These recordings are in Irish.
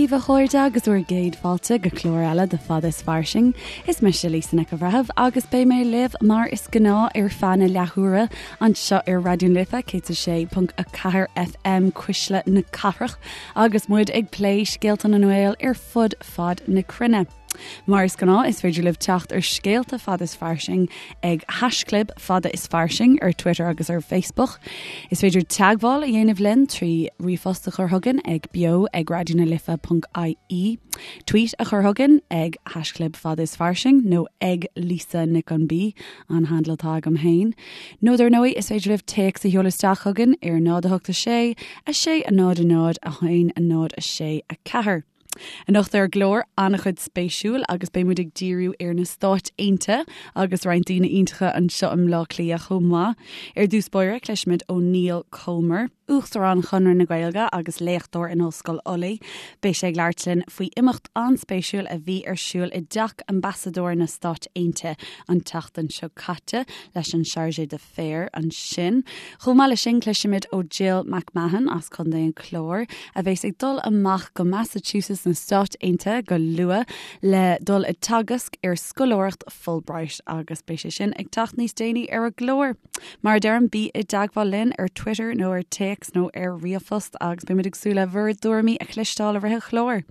daoibh a chairde agus bhur gcéad fáilte go clár eile de Fada is Fairsing. Is mise Lisa Nic an Bhreithimh agus beidh mé libh mar is gnáth ar feadh na leathuaire anseo ar Raidió na Life 106.4 FM Cuisle na Cathrach agus muid ag plé scéalta na nGael ar fud fad na cruinne. Mar is gnáth, is féidir libh teacht ar scéalta Fada is Fairsing ag haischlib Fada is Fairsing ar Twitter agus ar Facebook. Is féidir teagmháil a dhéanamh linn trí ríomhphost a chur chugainn ag beo ag raidionalife.ie, tweet a chur chugainn ag haischlib Fada is Fairsing nó ag Lisa Nic an B, an handle atá agam féin. Nó dar ndóigh, is féidir libh téacs a sheoladh isteach chugainn ar 0 8 6 6 0 0 1 0 6 4. Anocht ar an gclár, an-chuid spéisiúil agus beidh muid ag díriú ar na Stáit Aontaithe agus roinnt daoine iontacha anseo i mBleá Cliath chomh maith. Ar dtús báire, cloisfimid ó Niall Comer, Uachtarán Chonradh na Gaeilge agus léachtóir in Ollscoil Ulaidh. Beidh sé ag labhairt linn faoi imeacht an-spéisiúil a bhí ar siúl i dteach Ambasadóir na Stáit Aontaithe an tseachtain seo caite leis an Chargé d'Affaires ansin. Chomh maith leis sin, cloisfimid ó Jill McMahon as Contae an Chláir, a bheas ag dul amach go Massachusetts na Stáit Aontaithe go luath le dul ag teagasc ar scoláireacht Fulbright agus beidh sé sin ag teacht níos déanaí ar an gclár. Mar a deirim, bí i dteagmháil linn ar Twitter nó ar téacs nó ar ríomhphost agus beimid ag súil le bhur dtuairimí a chloisteáil i rith an chláir.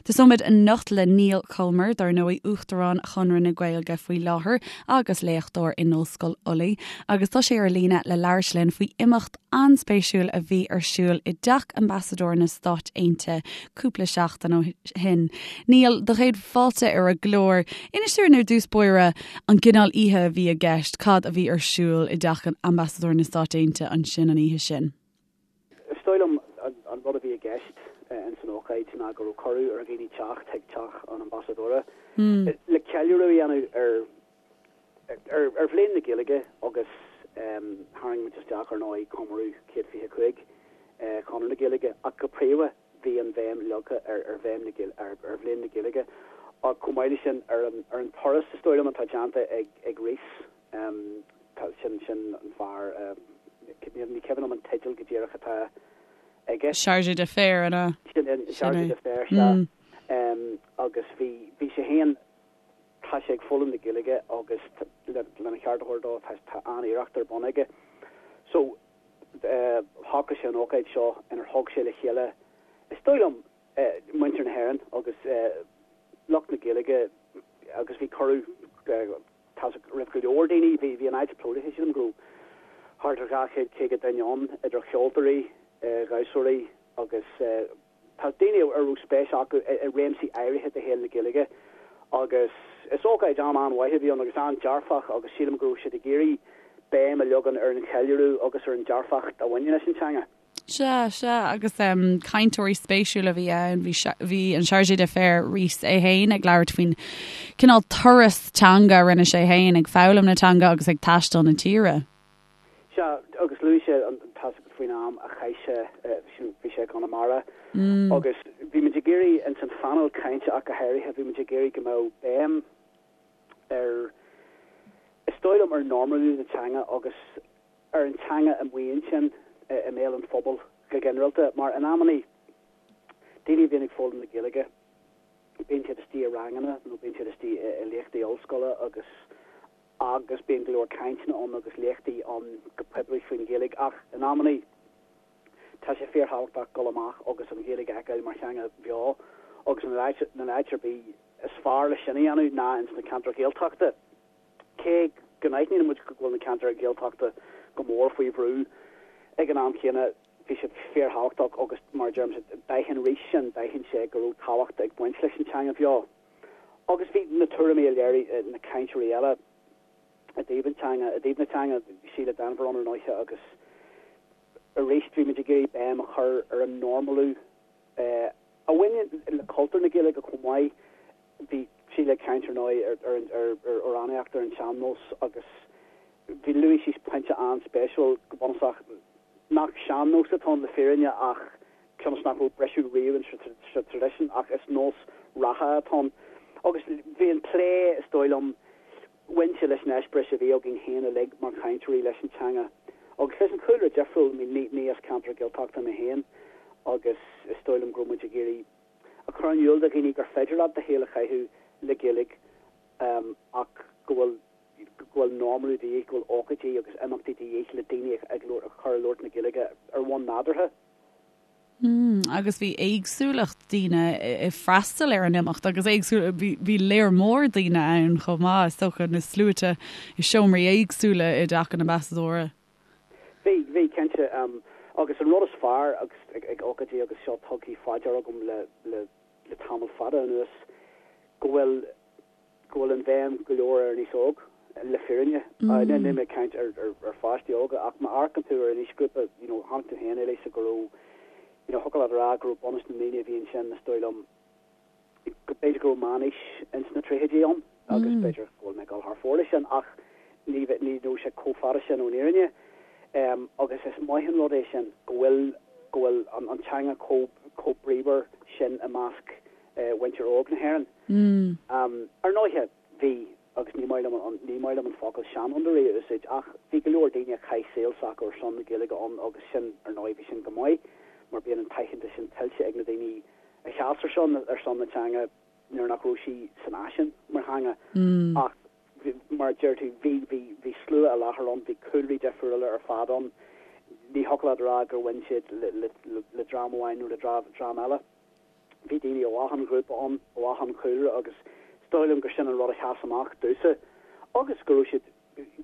Tosóimid anocht le Niall Comer, dar ndóigh, Uachtarán Chonradh na Gaeilge faoi láthair agus léachtóir in Ollscoil Ulaidh, agus tá sé ar líne le labhairt linn faoi imeacht an-spéisiúil a bhí ar siúl i dteach Ambasadóir na Stáit Aontaithe cúpla seachtain ó shin. Niall, do chéad fáilte ar an gclár. Inis dúinn ar dtús báire an gcineál oíche a bhí i gceist, cad a bhí ar siúl i dteach Ambasadóir na Stáit Aontaithe ansin an oíche sin? Is dóigh liom an rud a bhí i gceist ins an ócáid ná go raibh cuireadh ar dhaoine teacht chuig teach an Ambasadóra le ceiliúradh a dhéanamh ar ar Bhliain na Gaeilge agus tharraing muid isteach ar ndóigh comóradh 125 Chonradh na Gaeilge ach go príomha bhí an bhéim leagtha ar ar bhéim na ar Bhliain na Gaeilge ach chomh maith leis sin ar an ar an turas is dóigh liom atá déanta ag ag Rhys. Tá, sin, sin an fear, ní cuimhin liom an teideal go díreach atá aige. Chargé d'Affaires, an ea? Sin é, Chargé d'Affaires, sea. Agus bhí, bhí sé féin, tá sé ag foghlaim na Gaeilge agus lena cheart a thabhairt dó, tá, tá an-iarracht ar bun aige. So, shocraigh sé an ócáid seo inar thug sé le chéile, is dóigh liom, muintir na hÉireann agus lucht na Gaeilge agus bhí cuireadh, Tá roimh go leor daoine. Bhí an áit plódaithe, sílim go raibh thart ar 250 duine ann, idir cheoltóirí, dhamhsóirí agus tá daoine a raibh spéis acu i réimsí áirithe de shaol na Gaeilge agus is ócáid an-an-mhaith a bhí ann agus an-dearfach agus sílim go raibh siad ag iarraidh béim a leagan ar an cheiliúradh agus ar an dearfacht a bhaineann leis an teanga. Sea, sea, agus cainteoirí spéisiúla a bhí ann. Bhí, bhí an Chargé d'Affaires, Rhys é féin ag labhairt faoin cineál turas teanga a rinne sé féin ag foghlaim na teanga agus ag taisteal na tíre. Sea, agus luaigh sé an tasc faoin am a chaith sé, bhí sé i gConamara agus bhí muid ag iarraidh, ins an phainéal cainte ach go háirithe, bhí muid ag iarraidh go mbeadh béim ar, is dóigh liom, ar normalú na teanga agus ar an teanga amuigh ansin i mbéal an phobail go ginearálta, mar in amannaí, daoine a bhíonn ag foghlaim na Gaeilge, bíonn siad istigh i ranganna nó bíonn siad istigh i léachtaí ollscoile agus agus bíonn go leor cainteanna ann agus léachtaí ann go poiblí faoin Ghaeilge ach in amannaí tá sé fíorthábhachtach dul amach agus an Ghaeilge a fheiceáil mar theanga bheo agus an áit ar bith is fearr le sin a dhéanamh ná ins na ceantair Ghaeltachta. Cé go n-aithníonn muid go bhfuil na ceantair Ghaeltachta go mór faoi bhrú, ag an am chéanna bhí sé fíorthábhachtach agus mar a deirimse, d'aithin Rhys sin, d'aithin sé go raibh tábhacht ag baint leis an teanga bheo. Agus bhí na tuairimí a léirigh na cainteoirí eile i dtaobh an teanga, i dtaobh na teanga, Síle Denvir ann ar ndóiche agus arís bhí muid ag iarraidh béim a chur ar an normalú a bhaineann le cultúr na Gaeilge chomh maith. Bhí Síle ag caint ar ndóigh ar amhránaíocht ar an sean-nós agus bhí luaigh sí pointe an-spéisiúil go bunúsach nach sean-nós atá ann le fírinne ach cionn is nach raibh briseadh riamh sa traidisiún ach is nós reatha atá ann. Agus bhí an plé, is dóigh liom, bhain sé leis an eispéireas a bhí againn féin uilig mar chainteoirí leis an teanga agus leis an chúlra difriúil, ní as ceantar Gaeltachta mé féin agus is dóigh liom go raibh muid ag iarraidh. chur in iúl do dhaoine gur féidir leat do shaol a chaitheamh le Gaeilge ach go bhfuil go bhfuil normalú de dhíth, go bhfuil ócáidí agus imeachtaí de dhíth le daoine a chur ag labhairt na Gaeilge ar bhonn nádúrtha. Mm, agus bhí éagsúlacht daoine ag freastal ar an imeacht agus éagsúil, bhí léar mór daoine ann chomh maith, is dócha, na sluaite i seomraí éagsúla i dTeach an Ambasadóra. Bhí, bhí, cinnte. Agus an rud is fearr agus ag ócáidí agus seo tugtha faoi deara agam le, le, le tamall fada anuas, go bhfuil, go bhfuil an bhéim go leor ar an aos óg, le fírinne. Níl mé ag caint ar ar pháistí óga ach má amharcann tú ar an aoisghrúpa, you know, chonaic tú féin, Lisa, go raibh, you know, thiocfadh leat a rá go raibh bunús na ndaoine a bhí ansin, is dóigh liom, go b'fhéidir go raibh meánaois ins na tríochaidí ann agus b'fhéidir go bhfuil mé ag dul thar fóir leis sin ach ní ní raibh sé chomh fada sin ón fhírinne. Agus is maith an rud é sin go bhfuil go bhfuil an an teanga chomh chomh bríomhar sin i measc mhuintir óg na hÉireann. Ar ndóighe, bhí, agus ní maith liom an, ní maith liom an focal seanfhondúirí a úsáid, ach bhí go leor daoine a chaith saol s'acu ar son na Gaeilge ann agus sin, ar ndóigh, bhí sin go maith mar bíonn an t-aitheantas sin tuillte ag na daoine a sheas ar son, ar son na teanga nuair nach raibh sí san fhaisean mar theanga. Ach mar a deir tú, bhí, bhí, bhí slua i láthair ann, bhí cúlraí difriúla ar fad ann. Ní thiocfadh leat a rá gur bhain siad le, le, le dream amháin nó le dream eile. Bhí daoine ó achan ghrúpa ann, ó achan chúlra agus is dóigh liom gur sin an rud a sheas amach domhsa agus go raibh siad,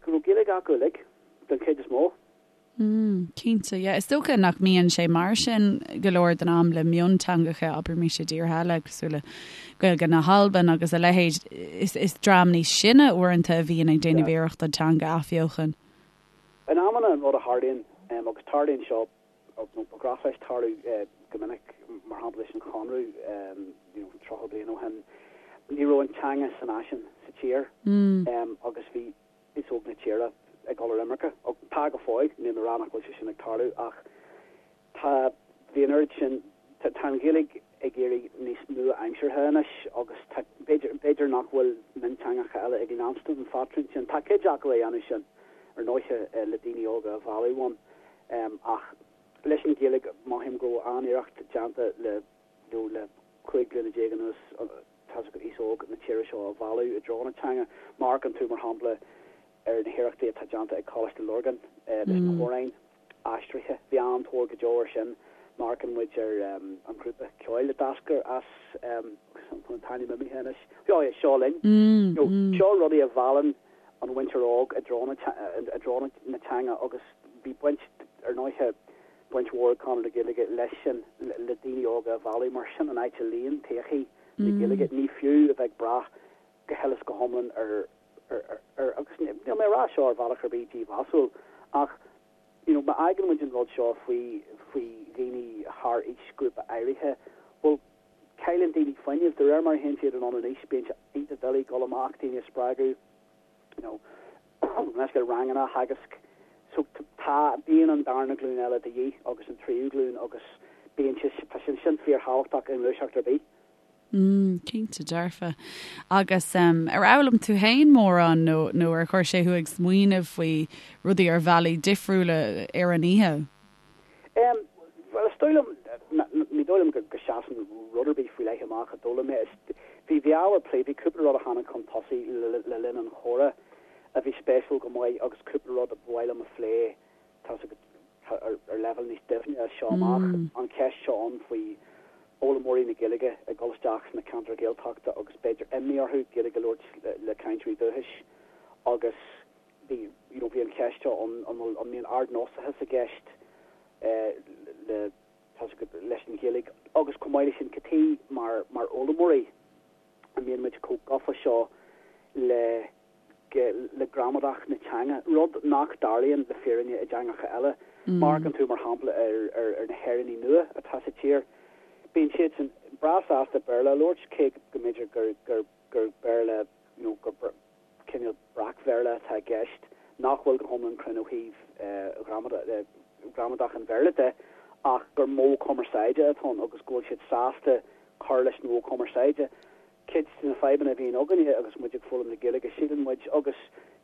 go raibh Gaeilge acu uilig, den chuid is mó. Mm, cinnte, yeah. Is dócha nach mbíonn sé mar sin go leor den am le mionteangacha, abraimis i dtíortha eile, cosúil le Gaeilge na hAlban agus a leithéid. Is, is dream níos sine uaireanta a bhíonn ag déanamh iarracht an teanga a athbheochan. In amanna an rud a tharlaíonn, agus tarlaíonn seo nó ba ghnách leis tarlú go minic, mar shampla leis an Chonradh, you know, 30 bliain ó shin, ní raibh an teanga san fhaisean sa tír agus bhí aos óg na tíre ag dul ar imirce. Tá go fóill, níl mé ag rá nach bhfuil sé sin ag tarlú ach tá, bhí an oiread sin, tá an Ghaeilge ag éirí níos nua-aimseartha anois agus tá, b'fhéidir, b'fhéidir nach bhfuil mionteangacha eile ag leanstan an phatrún sin. Tá cuid acu á dhéanamh sin, ar ndóiche, le daoine óga a mhealladh ann. Ach leis an Ghaeilge, mothaím go raibh an-iarracht déanta le, you know, le 15 bliana anuas, tá's agat, aos óg na tíre seo a mhealladh i dtreo na teanga. Má amharcann tú, mar shampla, ar na hiarrachtaí atá déanta ag Coláiste Lurgan leis na hamhráin aistrithe, bhí an-tóir go deo air sin. Má amharcann muid ar an ghrúpa ceoil a d'eascair as, an t-ainm imithe anois, oh yeah, Seo Linn. You know, seo rudaí a mheallann an mhuintir óg i dtreo i dtreo na teanga agus bhí baint, ar ndóiche, baint mhór ag Conradh na Gaeilge leis sin, le daoine óga a mhealladh mar sin an áit a luíonn todhchaí na Gaeilge. Ní fiú a bheith ag brath go huile is go hiomlán ar, ar, ar, agus níl mé ag rá seo ar bhealach ar bith dímheasúil ach you know má fhágann muid an rud seo faoi, faoi dhaoine thar aoisghrúpa áirithe, bhuel, Cailleann daoine fuinneamh de réir mar a théann siad anonn in aois, bíonn sé iontach doiligh dul amach, daoine a spreagadh, you know, leis ranganna a theagasc. So tá, bíonn an darna glúin eile de dhíth agus an tríú glúin agus bíonn sé, tá sé sin fíorthábhachtach i ngluaiseacht ar bith. Mm, cinnte dearfa. Agus um, ar fhoghlaim tú féin mórán nó, nó ar chuir sé thú ag smaoineamh faoi rudaí ar bhealaí difriúla ar an oíche? Em, bhuel, is dóigh liom, ní dóigh liom go seasann rud ar bith faoi leith amach a d'fhoghlaim mé. Is, bhí, bhí ábhar plé, bhí cúpla rud a tháinig chun tosaigh le, le linn an chomhrá a bhí spéisiúil go maith agus cúpla rud a ba mhaith liom a phlé, tá's agat, ar, ar leibhéal níos doimhne as seo amach. An cheist seo ann faoi fhoghlaimeoirí na Gaeilge ag dul isteach sna ceantair Ghaeltachta agus b'fhéidir imní orthu Gaeilge a labhairt le, le cainteoirí dúchais agus, bhí, you know, bhí an cheist seo ann, an bhfuil, an mbíonn ardnósachas i gceist le, tá's agat, leis an Ghaeilge agus chomh maith leis sin, cad chuige mar, mar fhoghlaimeoirí a mbíonn muid chomh gafa seo le, le gramadach na teanga, rud nach dtarlaíonn le fírinne i dteangacha eile. Má amharcann tú, mar shampla, ar, ar, ar na hÉireannaigh nua atá sa tír, bíonn siadsan breá sásta Béarla a labhairt, cé go mb'fhéidir gur, gur, gur Béarla, you know, gur, cineál breac-Bhéarla atá i gceist, nach bhfuil go hiomlán cruinn ó thaobh ghramadach an Bhéarla de, ach gur modh cumarsáide atá ann agus go bhfuil siad sásta cur leis an mhodh cumarsáide. Cuid de na fadhbanna a bhíonn againne agus muid ag foghlaim na Gaeilge, síleann muid, agus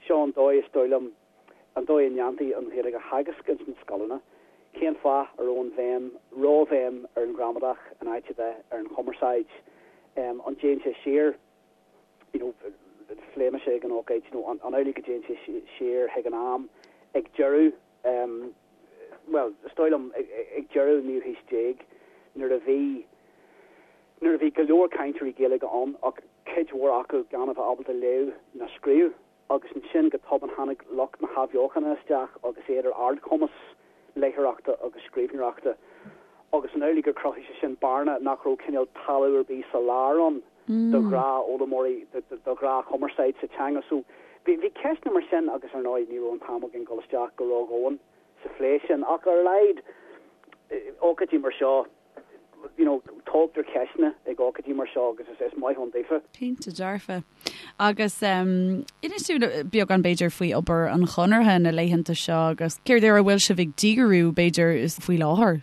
seo an dóigh, is dóigh liom, an dóigh a ndéantaí an Ghaeilge a theagasc ins na scoileanna. Cén fáth a raibh an bhéim, róbhéim ar an ghramadach in áit a bheith ar an chumarsáid? An dtéann sé siar, you know, phléigh mise ag an ócáid, you know, an amhlaidh go dtéann sé siar chuig an am ag deireadh, bhuel, is dóigh liom ag deireadh an naoú haois déag nuair a bhí, nuair a bhí go leor cainteoirí Gaeilge ann ach cuid mhór acu gan a bheith ábalta léamh ná scríobh. Agus ansin go tobann tháinig lucht na hathbheochana isteach agus iad ar ardchumas léitheoireachta agus scríbhneoireachta. Agus an amhlaidh gur chruthaigh sé sin bearna nach raibh cineál talamh ar bith sa lár ann do ghnáthfhoghlaimeoirí, do ghnáthchumarsáid sa teanga. So bhí ceisteanna mar sin agus ar ndóigh ní raibh an t-am againn dul isteach go ródhomhain sa phlé sin. Ach ar a laghad, ócáidí mar seo, you know, tógtar ceisteanna ag ócáidí mar seo agus is maith ann daofa. Cinnte dearfa. Agus inis dúinn beagán b'fhéidir faoi obair an Chonartha na laethanta seo agus céard ar a bhfuil sibh ag díriú b'fhéidir faoi láthair?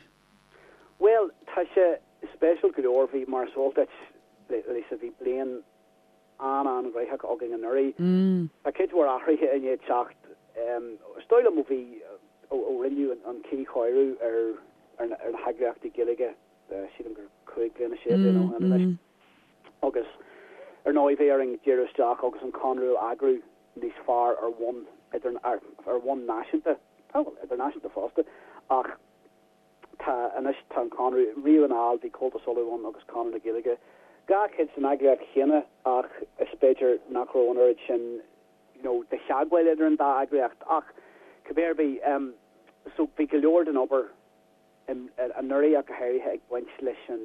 Bhuel, tá sé spéisiúil go leor. Bhí, mar is eol duit, Lisa, bhí bliain an-an-ghnóthach againn anuraidh. Tá cuid mhór athruithe i ndiaidh teacht. Is dóigh liom ó bhí, ó rinneadh an cuíchóiriú ar na heagraíochtaí Gaeilge, sílim gur 5 bliana, 6 bliana ó shin anois. Agus ar ndóigh bhí orainn díriú isteach agus an Conradh a eagrú níos fearr ar bhonn idir, ar bhonn náisiúnta, bhuel, idirnáisiúnta fosta, ach Tá anois, tá an Conradh, riamh anall bhí Comhaltas Uladh ann agus Conradh na Gaeilge, dhá chuid den eagraíocht chéanna ach is b'fhéidir nach raibh an oiread sin you know de theagmháil idir an dá eagraíocht ach cibé ar bith em so bhí go leor den obair em anuraidh ach go háirithe ag baint leis an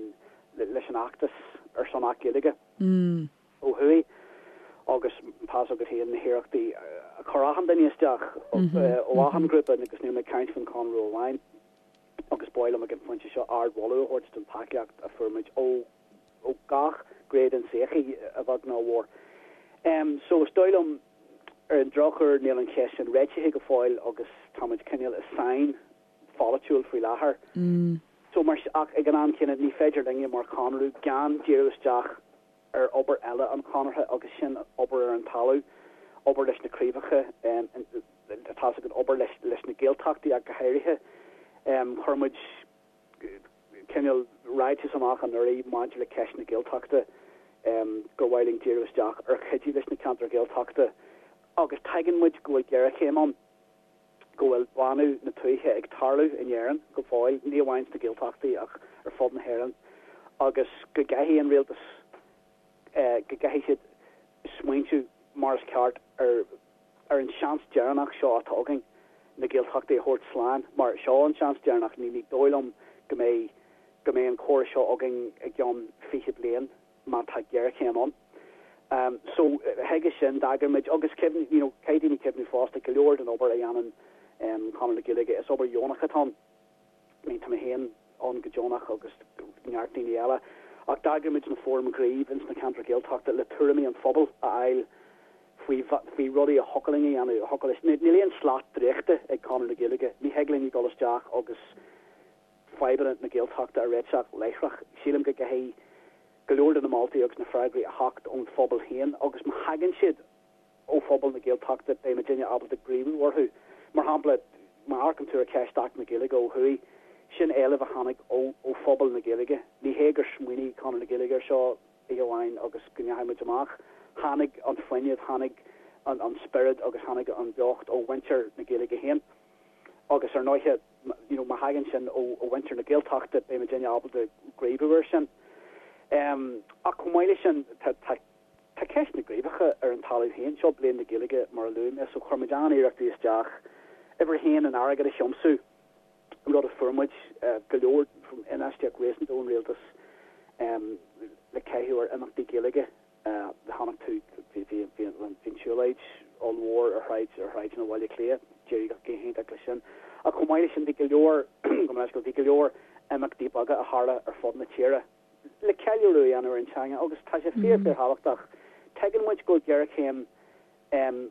leis an fheachtas ar son Acht Gaeilge. Ó thuaidh agus tá's agat féin na hiarrachtaí a chuir achan duine isteach ó achan ghrúpa agus níl mé ag caint faoin Chonradh amháin agus ba mhaith liom ag an phointe seo ardmholadh a thabhairt don tacaíocht a fuair muid ó ó gach gné den tsochaí, a bheag nó a mhór. So is dóigh liom ar an drochuair níl an cheist sin réitithe go fóill agus táimid cineál i sáinn pholaitiúil faoi láthair. So mar ach ag an am céanna ní féidir linne mar Chonradh gan díriú isteach ar obair eile an Chonartha agus sin obair ar an talamh, obair leis na craobhacha, tá's agat, obair leis na Gaeltachtaí ach go háirithe. Chuir muid cineál ráiteas amach anuraidh maidir le ceist na Gaeltachta gur mhaith linn díriú isteach ar chuidiú leis na ceantair Ghaeltachta agus tuigeann muid go bhfuil géarchéim ann. go bhfuil bánú na tuaithe ag tarlú in Éirinn go fóill, ní amháin sna Gaeltachtaí ach ar fud na hÉireann, agus go gcaithfidh an rialtas, go gcaithfidh siad smaointiú mar is ceart ar ar an seans deireanach seo atá againn na Gaeltachtaí a thabhairt slán, mar seo an seans deireanach, ní dóigh liom go mbeidh go mbeidh an córas seo againn i gceann 20 bliain. má tá géarchéim ann. So, chuige sin, d'eagraigh muid, agus cuimhnigh, you know, caithfidh daoine cuimhniú fosta, go leor den obair a dhéanann Conradh na Gaeilge, is obair dheonach atá ann. I mean, tá mé féin ann go deonach agus neart daoine eile, ach d'eagraigh muid na fóraim ghnímh ins na ceantair Ghaeltachta le tuairimí an phobail a fháil faoi, faoi rudaí a thiocfadh linn a dhéanamh, a thiocfadh leis. Níl aon slat draíochta ag Conradh na Gaeilge, ní thig linn dul isteach agus fadhbanna na Gaeltachta a réiteach láithreach. Sílim go gcaithfidh go leor de na moltaí agus na freagraí a theacht ón phobal féin agus má thagann siad ó phobal na Gaeltachta beidh muidinne ábalta gníomhú orthu. Mar shampla, má amharcann tú ar cheist Acht na Gaeilge ó thuaidh, sin éileamh a tháinig ó phobal na Gaeilge. Ní hé gur smaoinigh Conradh na Gaeilge air seo oíche amháin agus go ndeachaigh muid amach. Tháinig an fuinneamh, tháinig an spiorad agus tháinig an bheocht ó mhuintir na Gaeilge féin. Agus ar ndóighe, you know, má thagann sin ó mhuintir na Gaeltachta, beidh muidinne ábalta gníomhú air sin. Ach chomh maith leis sin, tá, tá, tá ceist na gcraobhacha ar an talamh féin. Seo Bliain na Gaeilge, mar a luaigh mé, so chuir muid an-iarrachtaí isteach, uimhir a haon, an airgead a thiomsú, rud a fuair muid, go leor, infheistíocht réasúnta ón rialtas le caitheamh ar imeachtaí Gaeilge. Chonaic tú, bhí an tsiúlóid ollmhór ar shráid, ar shráideanna Bhaile Átha Cliath, d'éirigh go hiontach leis sin. Ach chomh maith leis sin bhí go leor, gabh mo leithscéal, bhí go leor imeachtaí beaga a tharla ar fud na tíre le ceiliúradh a dhéanamh ar an teanga agus tá sé fíor, fíor thábhachtach. Tuigeann muid go bhfuil géarchéim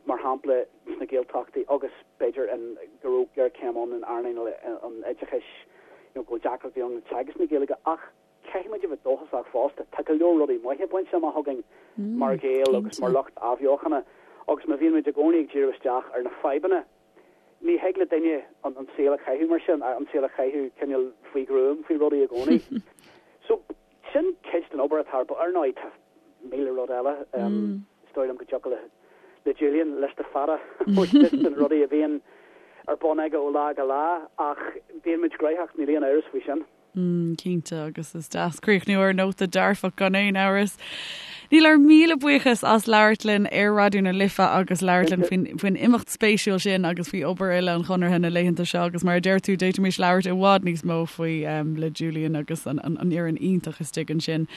mar shampla sna Gaeltachtaí agus b'fhéidir go raibh géarchéim ann in earnáil an oideachais, you know, go bhfuil deacrachtaí ann le teagasc na Gaeilge ach Caithfidh muid a bheith dóchasach fosta. Tá go leor rudaí maithe bainte amach againn mar Ghaeil agus mar lucht athbheochana agus má bhíonn muid i gcónaí ag díriú isteach ar na fadhbanna, Ní thig le duine an saol a chaitheamh mar sin, an saol a chaitheamh cineál faoi ghruaim faoi rudaí i gcónaí. So, sin cuid den obair atá ar bun. Ar ndóigh, tá 1000 rud eile. Is dóigh liom go dtiocfadh le le Julian liosta fada a thabhairt duit de na rudaí a bhíonn ar bun aige ó lá go lá, ach bíonn muid gnóthach, níl aon amhras faoi sin. Cinnte, agus is deas críochnú ar nóta dearfach gan aon amhras. Niall, ár míle buíochas as labhairt linn ar Raidió na Life agus labhairt linn faoin, faoin imeacht spéisiúil sin agus faoi obair uile an Chonartha na laethanta seo agus mar a deir tú, d'fhéadfaimis labhairt i bhfad níos mó faoi um, le Julian agus an, an, an fhoireann iontach istigh ansin.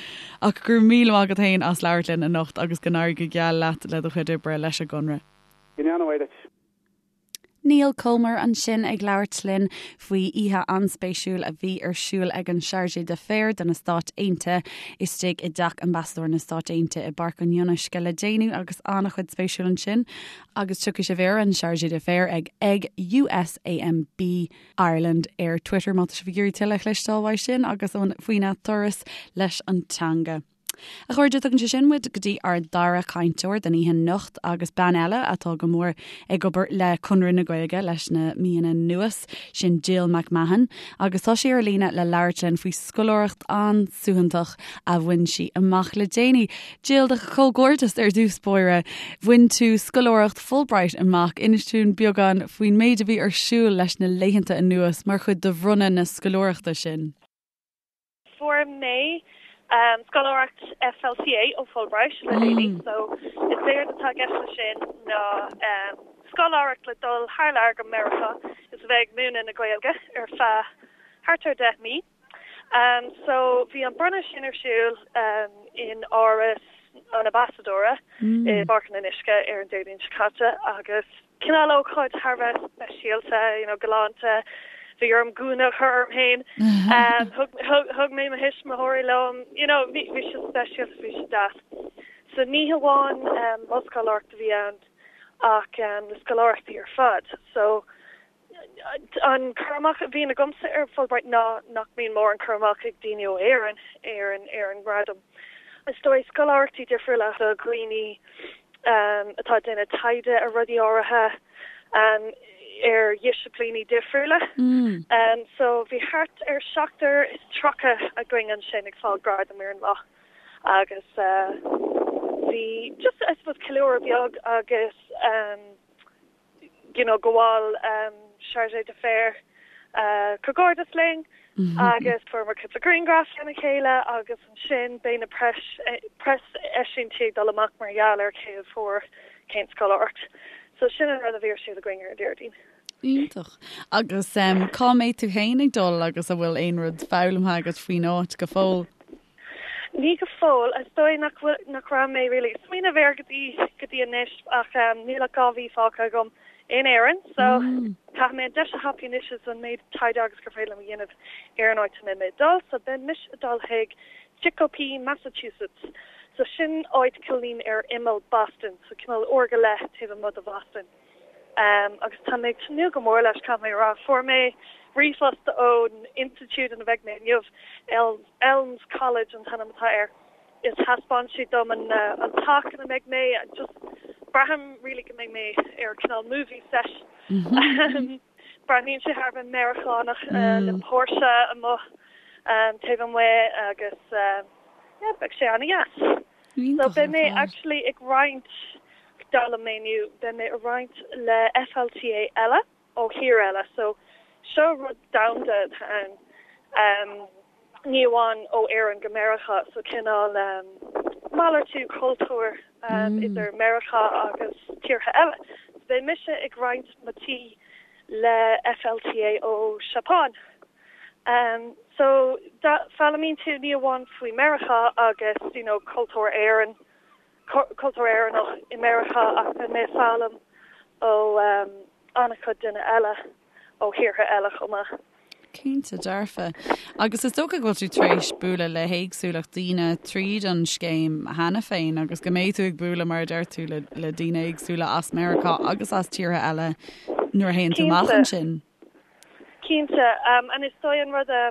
Ach go raibh míle maith agat féin as labhairt linn anocht agus go n-éirí go geal leat le do chuid oibre leis an gConradh. Go ndéana Dia duit. Niall Comer ansin ag labhairt linn faoi oíche an-spéisiúil a bhí ar siúl ag an Chargé d'Affaires do na Stáit Aontaithe istigh i dteach Ambasadóir na Stáit Aontaithe i bPáirc an Fhionnuisce le déanaí agus an-chuid spéisiúil ansin agus tiocfaidh sibh ar an Chargé d'Affaires ag ag USAMB Ireland ar Twitter má tá sibh ag iarraidh tuilleadh a chloisteáil uaidh sin agus faoina turas leis an teanga. A chairde, tugann sé sin muid go dtí ár dara cainteoir don oíche anocht agus bean eile atá go mór ag obair le Conradh na Gaeilge leis na míonna anuas, sin Jill McMahon, agus tá sí ar líne le labhairt linn faoi scoláireacht an-suaitheantach a bhain sí amach le déanaí. Jill, do chomhghairdeas ar dtús báire. Bhain tú scoláireacht Fulbright amach. Inis dúinn beagán faoin méid a bhí ar siúl leis na laethanta anuas mar chuid de bhronnadh na scoláireachta sin. Fuair mé scoláireacht FLTA ó Fulbright le déanaí so is éard atá i gceist leis sin ná scoláireacht le dul thar lear go Meiriceá is a bheith ag múineadh na Gaeilge ar feadh thart ar 10 mí. So bhí an bronnadh sin ar siúl in Áras an Ambasadóra i bPáirc an Fhionnuisce ar an Déardaoin seo caite agus cineál ócáid thar a bheith speisialta, you know, galánta. Bhí orm gúna a chur orm féin. Thug, thug, thug mé mo thuismitheoirí liom, you know, bhí, bhí sé speisialta, bhí sé deas. So ní hamháin mo scoláireacht a bhí ann ach na scoláireachtaí ar fad. So An cur amach a bhíonn agamsa ar Fulbright ná nach mbíonn mórán cur amach ag daoine ó Éirinn ar an ar an ngradam. Is dóigh scoláireachtaí difriúla do dhaoine atá ag déanamh taighde ar rudaí áirithe, ar dhisciplíní difriúla. So bhí thart ar 37 againn ansin ag fáil gradam ar an lá agus bhí just I suppose ceiliúradh beag agus you know, gabháil chargé d'affaires comhghairdeas linn agus fuaireamar cúpla grianghraf lena chéile agus ansin beidh na preis preaseisiúintí ag dul amach mar gheall ar cé a fuair cén scoláireacht. So sin an rud a bhí ar siúl againn ar an Déardaoin. Iontach. Agus cá mbeidh tú féin ag dul agus an bhfuil aon rud foghlamtha agat faoin áit go fóill? Ní go fóill. Is dóigh nach bhfuil, nach raibh mé really ag smaoineamh air go dtí, go dtí anois ach níl ach 2 mhí fágtha agam in Éirinn so caithfidh mé an deis a thapú anois is an méid taighde agus gur féidir liom a dhéanamh ar an áit a mbeidh mé ag dul. So beidh mise ag dul chuig Chicopee, Massachusetts. So sin áit cineáilín ar imeall Boston, so cineál uair go leith taobh amuigh de Bhoston. Agus tá mé ag tnúth go mór leis, caithfidh mé a rá. Fuair mé ríomhphost ón institiúid ina mbeidh mé inniu, Elms College an t-ainm atá air, is thaispeáin siad dom an an teach ina mbeidh mé, just braithim really go mbeidh mé ar cineál movie set. Breathnaíonn sé thar a bheith Meiriceánach le póirse amuigh taobh amuigh agus yeah, beidh sé an-dheas. So beidh mé actually ag roinnt, d'fhoghlaim mé inniu, beidh mé ag roinnt le FLTA eile ó thír eile. So seo rud domhanda atá ann, ní amháin ó Éirinn go Meiriceá, so cineál malartú cultúir idir Meiriceá agus tíortha eile. So beidh mise ag roinnt mo tí le FLTA ó Seapáin. So foghlaimíonn tú ní amháin faoi Meiriceá agus you know cultúr Éireann, cultúr Éireannach i Meiriceá ach beidh mé ag foghlaim ó an-chuid duine eile ó thíortha eile chomh maith. Cinnte dearfa. Agus is dócha go bhfuil tú tar éis bualadh le héagsúlacht daoine tríd an scéim cheana féin agus go mbeidh tú ag bualadh mar a deir tú le le daoine éagsúla as Meiriceá agus as tíortha eile nuair a théann tú amach ansin. Cinnte. And is dóigh an rud a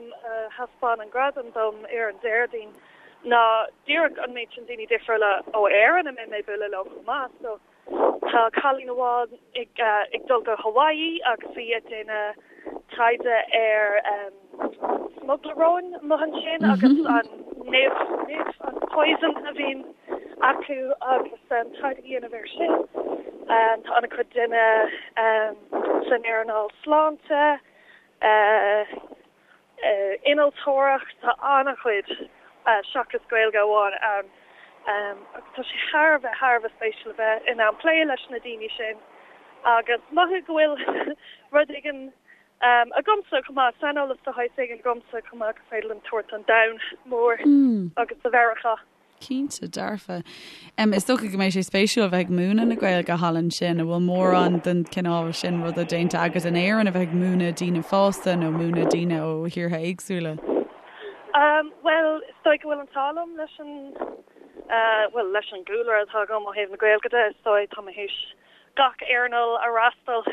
thaispeáin an gradam dom ar an Déardaoin. ná díreach an méid sin daoine difriúla ó Éirinn a mbeidh mé ag bualadh leo chomh maith. So tá cailín amháin ag ag dul go Hawaii agus í ag déanamh taighde ar smugairle róin amuigh ansin agus an nimh, nimh, an poison a bhíonn acu agus taighde a dhéanamh air sin. Tá an-chuid duine san earnáil sláinte, innealtóireacht, tá an-chuid seachas Gaeilge amháin ann agus tá sé thar a bheith, thar a bheith spéisiúil a bheith in ann plé leis na daoine sin agus mothú go bhfuil rud éigin agamsa chomh maith, saineolas de shaghas éigin agamsa chomh maith gur féidir liom tabhairt don domhan mór agus do Mheiriceá. Cinnte, dearfa. Is dócha go mbeidh sé spéisiúil a bheith ag múineadh na Gaeilge thall ansin. An bhfuil mórán den chineál sin ruda déanta agat in Éirinn, a bheith ag múineadh daoine fásta nó múineadh daoine ó thíortha éagsúla? Bhuel, is dóigh go bhfuil an t-ádh liom leis an, bhuel, leis an gcúlra atá agam ó thaobh na Gaeilge de, is dóigh, tá mé théis gach earnáil a fhreastal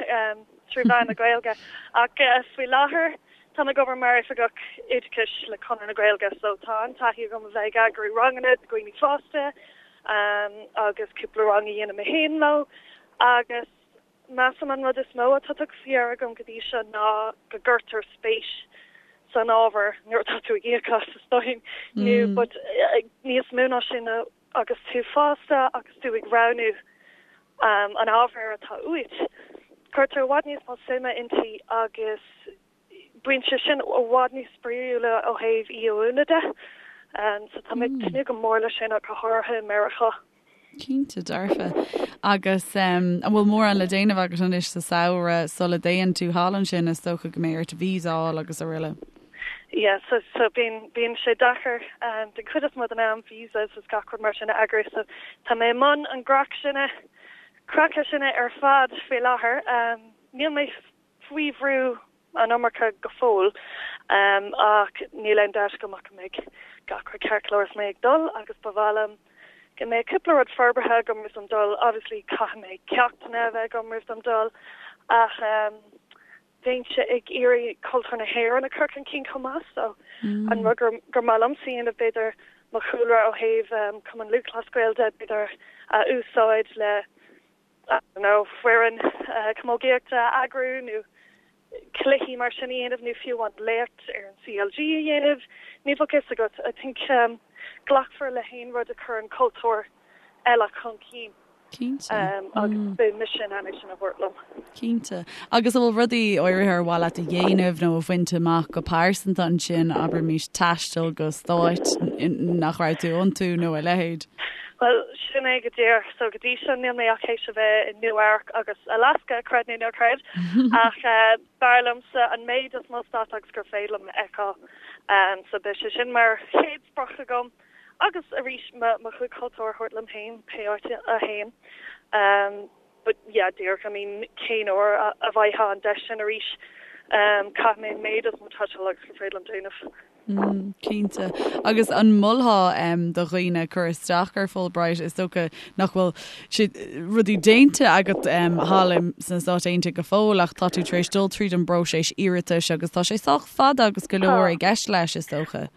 trí mheán na Gaeilge. Ach faoi láthair, Táim ag obair mar Oifigeach Oideachais le Conradh na Gaeilge so tá an-taithí agam a bheith ag eagrú ranganna do dhaoine fásta agus cúpla rang a dhéanamh mé féin leo agus measaim an rud is mó atá tugtha faoi deara agam go dtí seo ná go gcuirtear spéis san ábhar nuair atá tú ag íoc as is dóigh nó but níos mó ná sin agus tú fásta agus tú ag roghnú an ábhair atá uait, cuirtear i bhfad níos mó suime inti agus bíonn sé sin i bhfad níos spraíúla ó thaobh í a mhúineadh de. So tá mé ag tnúth go mór leis sin ach go háirithe i Meiriceá. Cinnte, dearfa. Agus an bhfuil mórán le déanamh agat anois sa samhradh sula dtéann tú thall ansin? Is dócha go mbeidh ort visa a fháil agus araile. Yeah, so so bíonn bíonn sé deacair den chuid is mó den am visas is gach rud mar sin a eagrú so tá mé i mbun an craic sin craic sin ar fad faoi láthair. Níl mé faoi bhrú an iomarca go fóill ach níl aon dabht agam ach go mbeidh gach rud ceart go leor is mé ag dul agus ba mhaith liom go mbeidh cúpla rud forbartha agam roimh dom dul. Obviously caithfidh mé ceachtanna a bheith agam roimh dom dul ach bheinnse ag iarraidh cultúr na hÉireann a chur chun cinn chomh maith so an rud gur gur maith liomsa a dhéanamh b'fhéidir mo chúlra ó thaobh Cumann Lúthchleas Gael de b'fhéidir a úsáid le I don't know foireann camógaíochta a eagrú nó cluichí mar sin a dhéanamh nó fiú amháin léacht ar an CLG a dhéanamh ní bheadh fhios agat I think glacfar le haon rud a chuireann cultúr eile chun cinn. Cinnte. Agus beidh mise in ann é sin a thabhairt liom. Cinnte. Agus an bhfuil rudaí áirithe ar mhaith leat a dhéanamh nó a bhaint amach go pearsanta ansin, abraimis taisteal go stáit nach raibh tú iontu nó a leithéid? Bhuel, sin é go díreach. So go dtí seo níl mé ach théis a bheith i Nua Eabhrac agus Alaska, creid nó ná creid, ach b'fhearr liomsa an méid is mó stát agus gur féidir liom a fheiceáil. So beidh sé sin mar chéad sprioc agam. Agus arís mo chuid cultúir a thabhairt liom féin pé áit a théim. But yeah, díreach, I mean cén uair a bhfaighfeá an deis sin arís? Caithfidh mé an méid is mó taistil agus gur féidir liom déanamh. Mm, cinnte. Agus an molfá do dhaoine cur isteach ar Fulbright? Is dócha nach bhfuil sé rudaí déanta agat thall sna Stáit Aontaithe go fóill ach tá tú tar éis dul tríd an bpróiseas iarratais agus tá sé sách fada agus go leor i gceist leis, is dócha.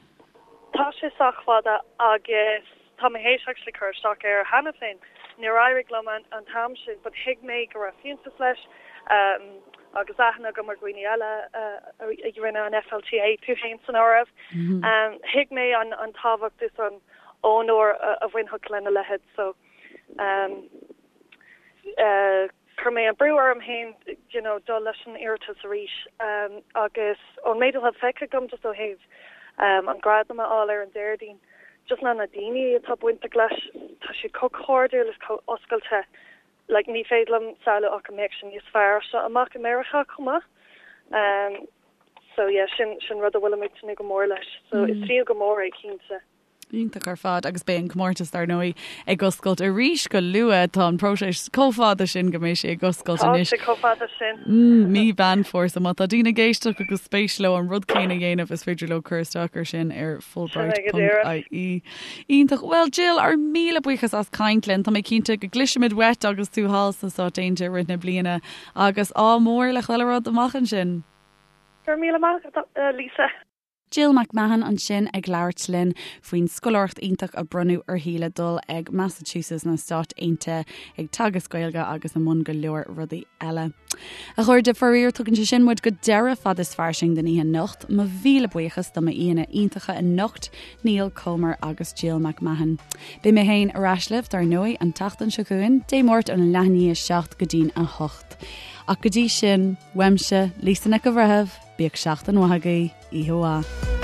Tá sé sách fada agus tá mé théis actually cur isteach air cheana féin. Níor éirigh liom an t-am sin but thuig mé go raibh fiúntas leis agus aithne agam ar dhaoine eile a rinne an FLTA, tú féin san áireamh. Thuig mé an tábhacht is an onóir a bhainfeadh lena leithéid so Chuir mé an brú orm féin you know dul leis an iarratas arís agus ón méid atá feicthe agam just ó thaobh an gradam a fháil ar an Déardaoin, just na na daoine atá bainteach leis, tá siad chomh cairdiúil is chomh oscailte, like ní féidir liom samhlú ach go mbeadh sé níos fearr as seo amach i Meiriceá chomh maith. So yeah, sin sin rud a bhfuilim ag tnúth go mór leis. So is fiú go mór é cinnte. Iontach ar fad agus beidh an comórtas dar ndóigh ag oscailt arís go luath. Tá an próiseas chomh fada sin go mbeidh sé ag oscailt anois. Tá sé chomh fada sin. Mí Mheán Fómhair. So má tá daoine ag éisteacht agus spéis leo an rud céanna a dhéanamh is féidir leo cur isteach ar sin ar fulbright.ie. Iontach. Bhuel Jill, ár míle buíochas as caint linn. Tá mé cinnte go gcloisfimid uait agus tú thall sna Stáit Aontaithe i rith na bliana agus ádh mór le chuile rud amach ansin. Go raibh míle maith agat, Lisa. Jill McMahon ansin ag labhairt linn faoin scoláireacht iontach a bronnadh uirthi le dul ag Massachusetts na Stáit Aontaithe ag teagasc Gaeilge agus i mbun go leor rudaí eile. A chairde, faraor tugann sé sin muid go deireadh Fad is Fairsing don oíche anocht. Mo mhíle buíochas do m'aíonna iontacha anocht, Niall Comer agus Jill McMahon. Beidh mé féin ar ais libh dar ndóigh an tseachtain seo chugainn, Dé Máirt óna leath i ndiaidh a 7 go dtí'n 8. Ach go dtí sin, uaimse, Lisa Nic an Bhreithimh, bíodh seachtain mhaith agaibh, oíche mhaith.